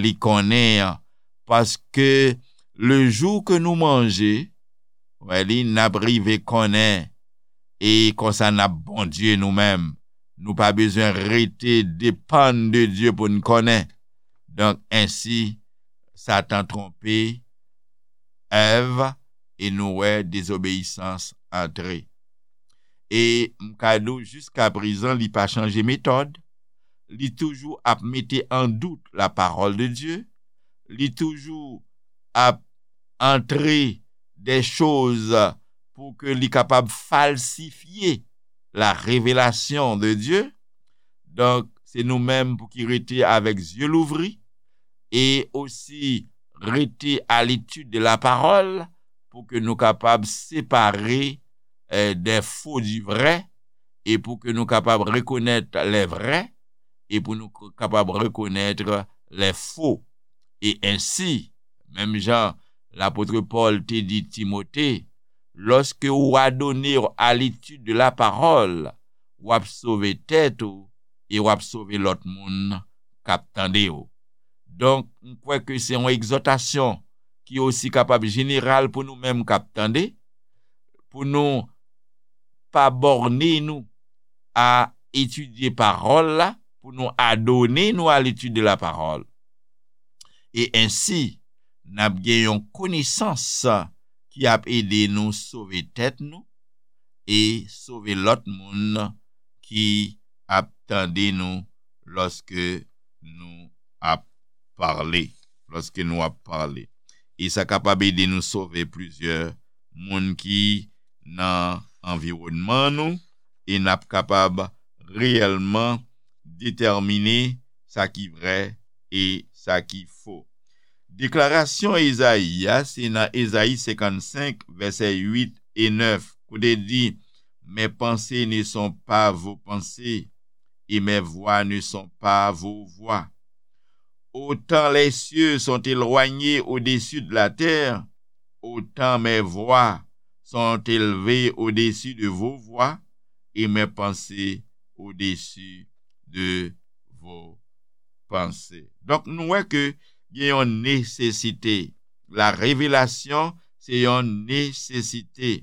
li konnen an. Paske le jou ke nou manje, wè li, n ap rive konnen. E konsa n ap Bondye nou menm. Nou pa bezwen rete depann de Dye pou n konnen. Donk, ensi, Satan twonpe Èv e nou wè dezobeyisans antre. E m ka di w, jiska prezan, li pa chanje metòd. Li toujou ap mete an dout la parole de Dieu. Li toujou ap antre de choz pou ke li kapab falsifye la revelasyon de Dieu. Donk, se nou menm pou ki rete avèk zye louvri e osi rete à l'étude de la parole pou ke nou kapab separe eh, des faux du vrai e pou ke nou kapab rekonèt les vrais e pou nou k- kapab rekonèt les faux. E ensi, menm jan lapot Pòl te di Timote, lòske ou adone w a l'étude de la parole, w ap sove tèt ou e w ap sove lòt moun k ap tande w. Donk, m kwè ke se yon egzòtasyon ki osi kapab jeneral pou nou menm k ap tande, pou nou pa bòne nou a etidye pawòl la, pou nou adone nou a l'étude de la parole. E ensi, n ap gen yon konesans ki ap ede nou sove tèt nou e sove lòt moun ki ap tande nou lòske nou ap pale, lòske nou ap pale. E sa kapab ede nou sove plizyè moun ki nan anviwònman nou, e n ap kapab reyèlman detèmine sa ki vrè e sa ki fo. Deklarasyon Ezayi a, se nan Ezayi senkannsenk, vèsè uit e nèf, kote di, Mes pensées ne sont pas vos pensées, et mes voies ne sont pas vos voies. Autant les cieux sont éloignés au-dessus de la terre, autant mes voies sont élevées au-dessus de vos voies, et mes pensées au-dessus de vos pensées. Donk, nou wè ke gen yon nesesite. La revelasyon, se yon nesesite.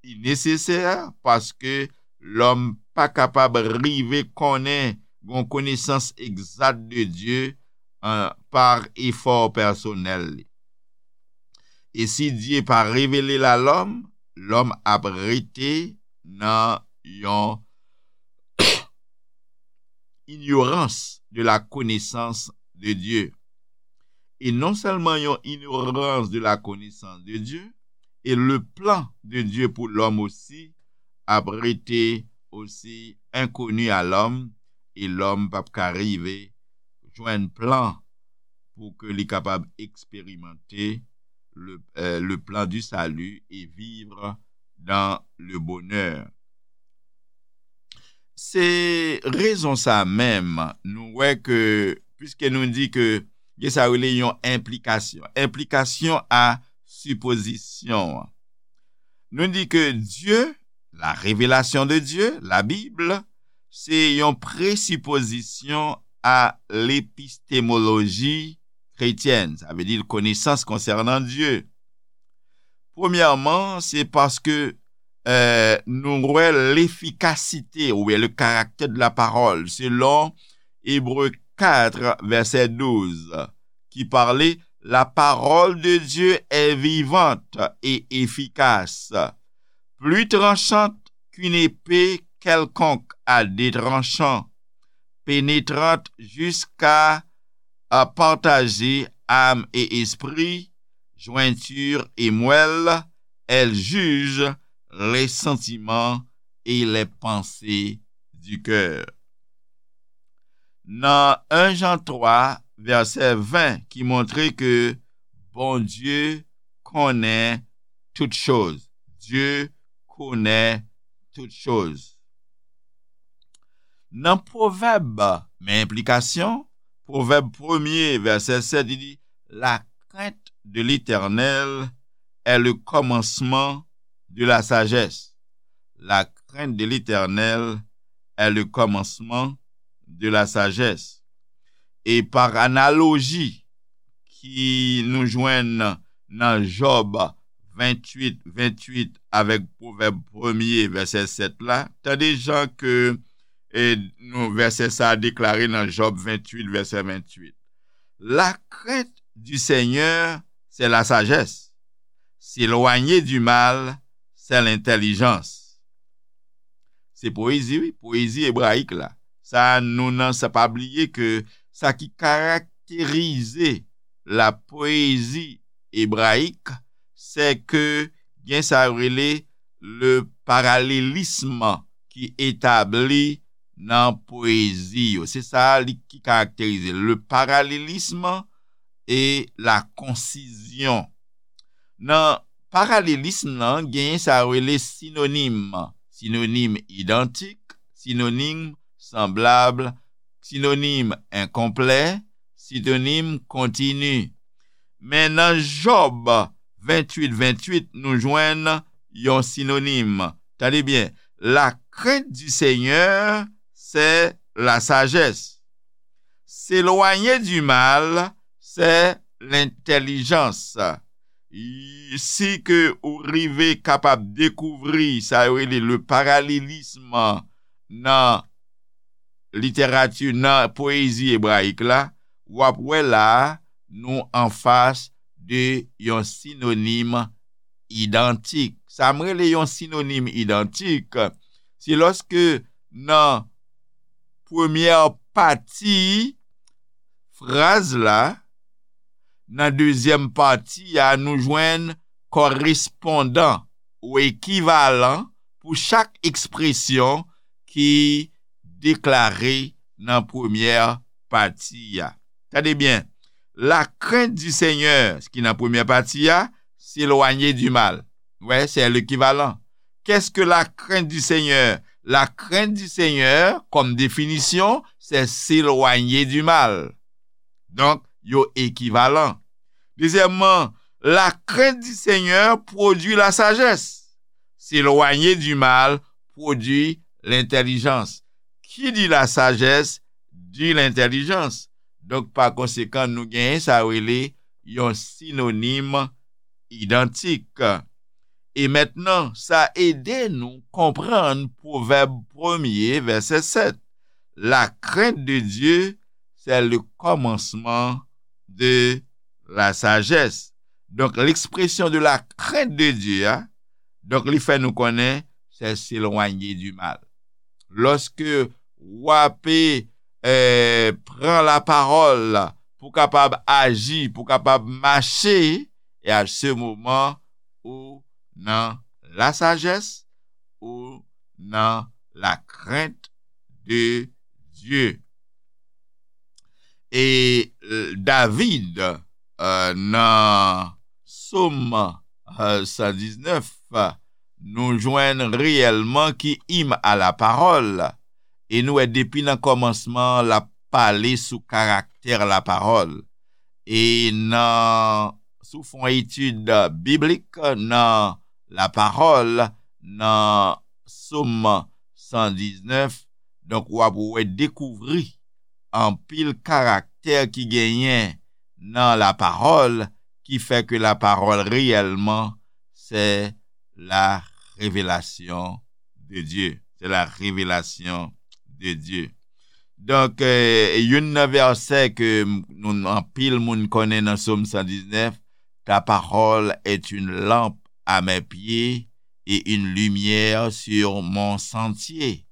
Li nesesè paske lòm pa kapab rive konnen yon konesans egzat de Dye an, pa efò pèsonèl li. E si Dye pa revele l a lòm, lòm ap rete nan yon ignorance de la connaissance de Dieu. E non sèlman yon ignorans de la connaissance de Dieu, e le plan de Dieu pou lòm osi ap rete osi enkoni a lòm, e lòm p ap ka rive jwenn plan pou ke li kapab eksperimante le, euh, le plan du salut et vivre dans le bonheur. Se rezon sa menm, nou wè ke, piske nou di ke gen sa rele yon enplikasyon, enplikasyon a sipozisyon an. Nou di ke Dye, la revelasyon de Dye, la Bib, se yon presipozisyon a lepistemoloji kretyèn, sa vle di konesans konsènan Dye. Premyèman, se paske euh, nou wè lefikasite oubyen le caractère de la parole, selon Hébreux quatre, verset douze, qui parlait, La parole de Dieu est vivante et efficace, plus tranchante qu'une épée quelconque à deux tranchants, pénétrante jusqu'à à partager âme et esprit, jointure et moelle, elle juge les sentiments et les pensées du cœur. Nan un Jean trois, verset vingt, ki montre ke Bondye konnen tout choz. Dye konnen tout choz. Nan Pwovèb, men enplikasyon, Pwovèb premye, vèsè sèt, li di, La crainte de l'Éternel est le commencement de la sagesse. La crainte de l'Éternel est le commencement de la sagesse. E pa analoji ki nou jwenn nan Jòb venntuit, venntuit avèk Pwovèb premye, vèsè sèt la, tande jan ke e, nou, vèsè sa a deklare nan Jòb venntuit, vèsè venntuit. La crainte du Seigneur, c'est la sagesse. S'éloigner du mal, c'est l'intelligence. Se poezi, wi, poezi ebrayik la. Sa nou nan sa pa bliye ke sa ki karakterize la poésie hébraïque, se ke gen sa yo rele le parallélisme ki etabli nan poezi yo. Se sa li ki karakterize le parallélisme et la concision. Nan parallélisme nan, genyen sa yo rele sinonim, sinonim idantik, sinonim sanblab, sinonim enkonplè, sinonim kontini. Men nan Jòb venntuit venntuit, nou jwenn yon sinonim. Tande byen, la crainte du Seigneur, c'est la sagesse. S'éloigner du mal, c'est l'intelligence. Si ke ou rive kapab dekouvri sa yo rele le parallélisme nan literati, nan poezi ebrayik la, w ap wè la nou anfas de yon sinonim idantik. Sa m rele yon sinonim idantik, se lòske nan premyè pati fraz la, nan dezyèm pati a, nou jwenn korespondan ou ekivalan pou chak ekspresyon ki deklare nan premyè pati a. Tande byen, la crainte du Seigneur, ki nan premyè pati a, s'éloigner du mal. Wè, se lekivalan. Qu'est-ce que la crainte du Seigneur? La crainte du Seigneur, comme définition, c'est s'éloigner du mal. Donk, yo ekivalan. Dezyèmman, la crainte du Seigneur produit la sagesse. S'éloigner du mal produit l'intelligence. Qui dit la sagesse dit l'intelligence. Donk, pa konsekan, nou genyen sa rele yon sinonim idantik. E mentnan, sa ede nou konprann Pwovèb premye, vèsè sèt. La crainte de Dieu, c'est le commencement de la sagesse. Donk, l'expression de la crainte de Dieu a, donk, li fè nou konnen, c'est s'éloigner du mal. Lòske w ape eh, pran lapawòl pou kapab aji, pou kapab mache, e a se moman ou nan la sagesse, ou nan la crainte de Dieu. E eh, David, eh, nan Sòm eh, san diznèf, nou jwenn reyèlman ki im a lapawòl. E nou wè depi nan kòmansman, l ap pale sou karaktè lapawòl. E nan, sou fon etid biblik nan lapawòl, nan Sòm san diznèf, donk w ap wè dekouvri anpil karaktè ki genyen nan lapawòl ki fè ke lapawòl reyèlman se la révélation de Dieu. C'est la révélation de Dieu. Donk, eh, youn nan vèsè ke m- nou anpil moun konnen nan Sòm san diznèf, ta parole est une lampe à mes pieds et une lumière sur mon sentier.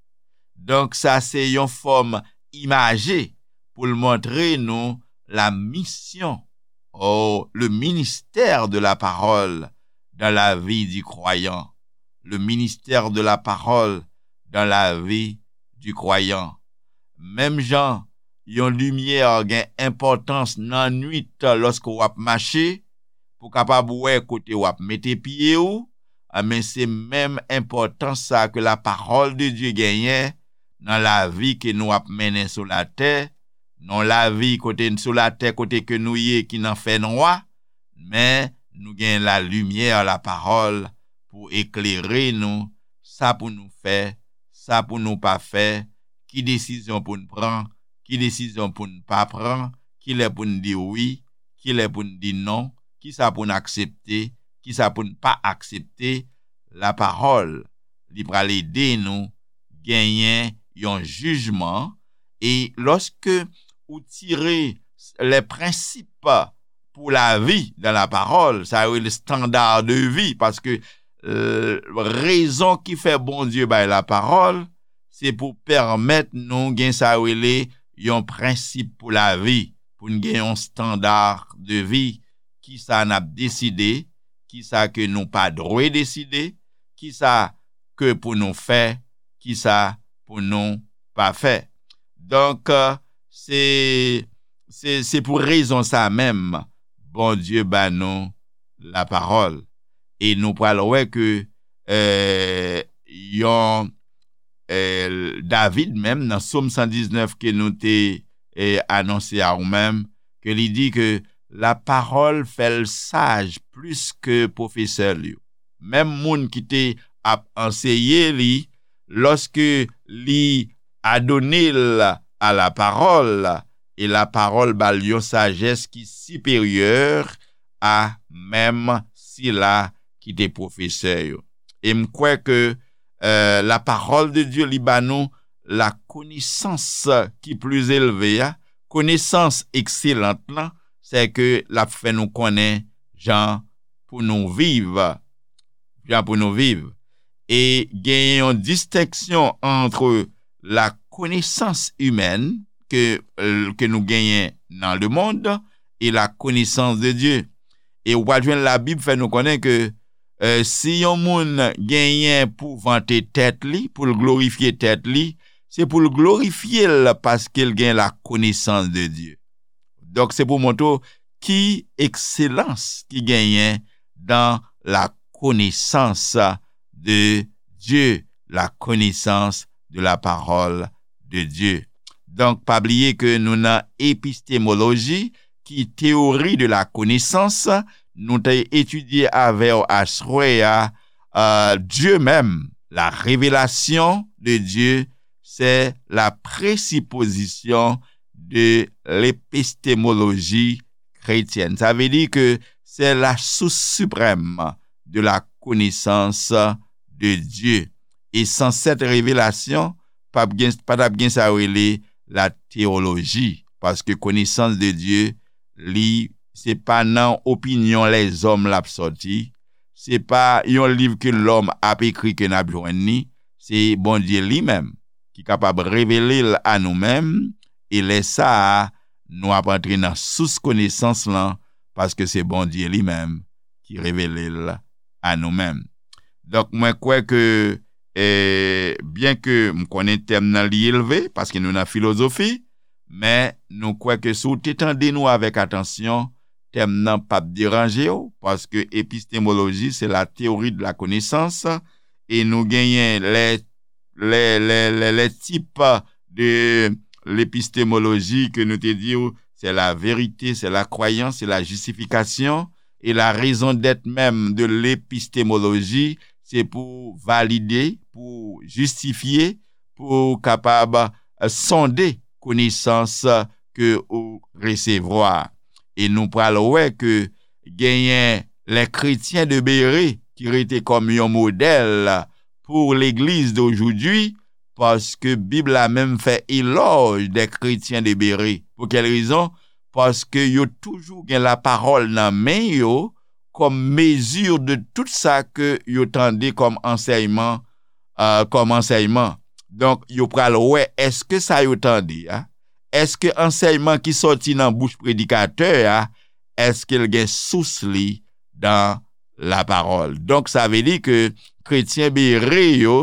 Donk, sa se yon fòm imaje pou l montre nou la mission, oh, le ministère de la parole dans la vie du croyant. Le ministère de la parole dans la vie du croyant. Menm jan yon limyè gen enpòtans nan nwit lòske w ap mache, pou kapab wè kote w ap mete pye w, men se menm enpòtans sa ke la parole de Dieu genyen nan lavi ke nou ap mennen sou latè, nan lavi kote sou latè kote ke nou ye ki nan fènwa, men nou gen la limyè, la parole, pou eklere nou, sa pou nou fè, sa pou nou pa fè, ki desizyon pou n pran, ki desizyon pou n pa pran, kilè pou n di wi, kilè pou n di non, kisa pou n aksepte, kisa pou n pa aksepte. La parole, li pral ede nou genyen yon jijman. E lòske ou tire les principes pour la vie dans la parole, sa yo rele standard de vie, paske euh, rezon ki fè Bondye bay la parole, se pou pèmèt nou gen sa yo rele yon prensip pou lavi, pou n gen yon standard de vie, ki sa n ap deside, ki sa ke nou pa dwe deside, ki sa ke pou nou fè, ki sa pou nou pa fè. Donk, euh, se, se, se pou rezon sa menm, Bondye ba nou la parole. E nou pral wè ke euh, yon euh, David menm nan Sòm san diznèf ke nou te euh, anonse a ou menm, ke li di ke la parole fè l saj plis ke pwofesè l yo. Menm moun ki te ap anseye li, lòske li adone l a la parole, e la parole ba l yon sajès ki siperyè a menm sila ki te pwofesè yo. E m kwè ke euh, la parole de Dieu li ba nou la konesans ki pli elve a, konesans ekselant lan, se ke l ap fè nou konnen jan pou nou viv, jan pou nou viv. E gen yon distenksyon ant la connaissance humaine ke, ke nou genyen nan le monde e la connaissance de Dieu. E w pral jwenn Labib fè nou konnen ke euh, si yon moun genyen pou vante tèt li, pou l glorifye tèt li, se pou l glorifye l paske l gen la connaissance de Dieu. Donk, se pou montre w ki ekselans ki genyen dans la connaissance de Dieu, la connaissance de la parole de Dieu. Donk, pa bliye ke nou nan epistemologie, ki théorie de la connaissance, nou te etidye avè w aswè a, euh, Dieu même, la révélation de Dieu, c'est la présupposition de l'épistémologie chrétienne. Sa vle di ke c'est la source suprême de la connaissance de Dieu. E san cette révélation, pa t ap gen, pa t ap gen sa yo rele la théologie. Paske connaissance de Dieu, li, se pa nan opinyon lèzòm l ap sòti, se pa yon liv ke lòm ap ekri ke n ap jwenn li, se Bondye li menm ki kapab revele l a nou menm, e lè sa a, nou ap antre nan sous konesans lan, paske se Bondye li menm ki revele l a nou menm. Donk, mwen kwè ke, eh, byen ke m konnen tèm nan li elve, paske nou nan filozofi, men nou kwè ke si w te tande nou avèk atansyon, tèm nan p ap deranje w, paske epistemologie, c'est la théorie de la connaissance, e nou genyen les, les, les, les, les types de l'épistémologie ke nou te di w, c'est la vérité, c'est la croyance, c'est la justification, et la raison d'être même de l'épistémologie, se pou valide, pou jistifye, pou kapab euh, sonde konesans ke ou resevwa. E nou pral wè ke genyen les chrétiens de Bérée ki rete kòm yon modèl pour l'église d'aujourd'hui, paske Bib la menm fè elòj des chrétiens de Bérée. Pou kèl rezon? Paske yo toujou gen la parole nan men yo kòm mezi de tout sa ke yo tande kòm ansèyman, euh, kòm ansèyman. Donk, yo pral wè èske sa yo tande a, èske ansèyman ki sòti nan bouch predikatè a, èske l gen sous li dan la parole. Donk, sa vle di ke kretyen Bere yo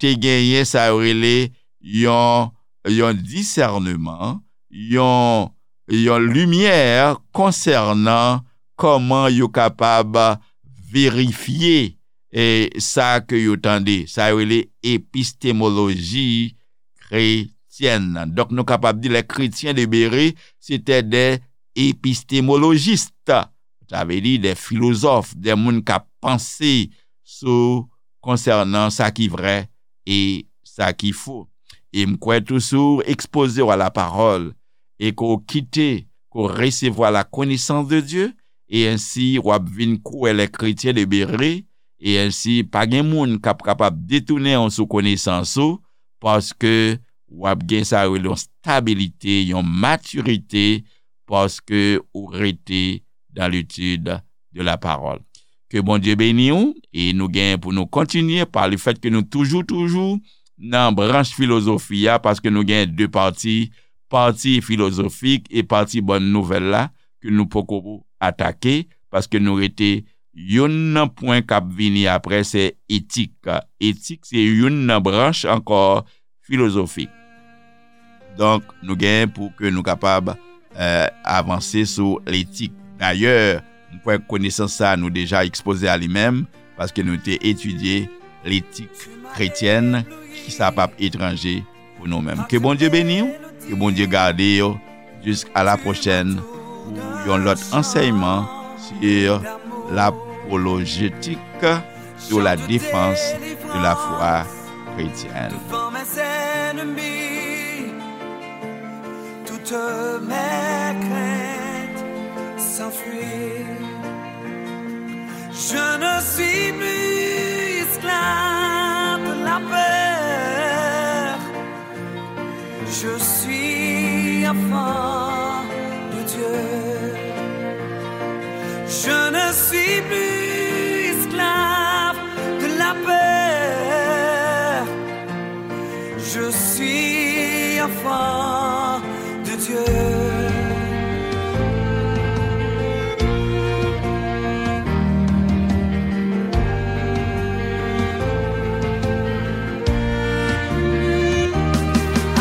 te genyen sa yo rele yon, yon disèneman, yon, yon limyè konsènan kòman yo kapab verifye e sa ke yo tande. Sa yo rele epistemologie chrétienne. Donk, nou kapab di les chrétiens de Bérée, c'était des épistémologistes. Sa vle di des philosophes, des moun k ap panse sou konsènan sa ki vrè e sa ki fo. E m kwè tou si w ekspoze w a la parole e ke w kite, ke w resevwa la connaissance de Dieu, e ensi w ap vin kwè les chrétiens de Bérée, e ensi pa gen moun k ap kapab detounen w sou konesans ou, paske w ap gen sa yo rele yon stabilite, yon matirite, paske ou rete dans l'étude de la parole. Ke Bondye beni w, e nou gen pou nou kontinye pa le fèt ke nou toujou, toujou nan branch filozofi a, paske nou gen de pati, pati filozofik e pati bòn nouvèl la, ke nou poko atake, paske nou rete youn nan pwen k ap vini apre, se etik. Etik se youn nan branch ankò filozofik. Donk, nou gen pou ke nou kapab, eh, avanse sou letik. Dayè, m kwè konesans sa a nou deja ekspoze a li menm, paske nou te etidye letik kretyèn, ki sa p ap etranje pou nou menm. Ke Bondye beni w, ke Bondye gade w, jiska la pwochèn pou yon lòt ansèyman sur l'apologétique, sur la défense de la foi chrétienne. Devant mes ennemis, toutes mes craintes s'enfuient. Je ne suis plus esclave de la peur. Je suis enfant de Dieu. Je ne suis plus esclave de la peur. Je suis enfant de Dieu.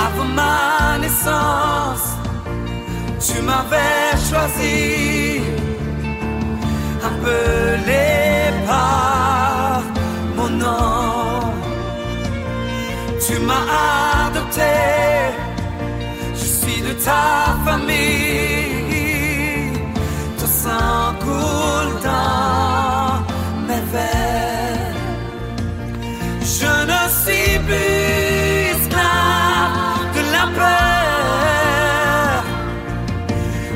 Avant ma naissance, tu m'avais choisi, appelé par mon nom. Tu m'as adopté, je suis de ta famille. Ton sang coule dans mes veines. Je ne suis plus esclave de la peur.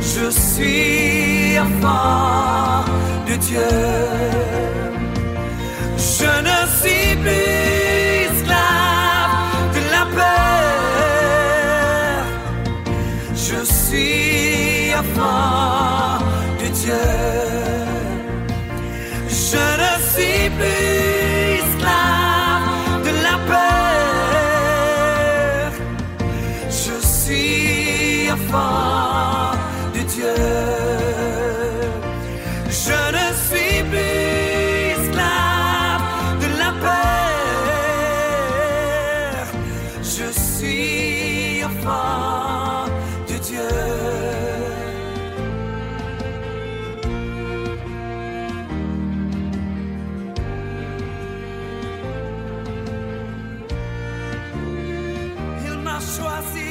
Je suis enfant de Dieu. Je ne suis plus esclave de la peur. Je suis enfant de Dieu. Je ne suis plus esclave de la peur. Je suis enfant de Dieu. Je ne suis plus esclave de la peur. Je suis enfant de Dieu. Il m'a choisi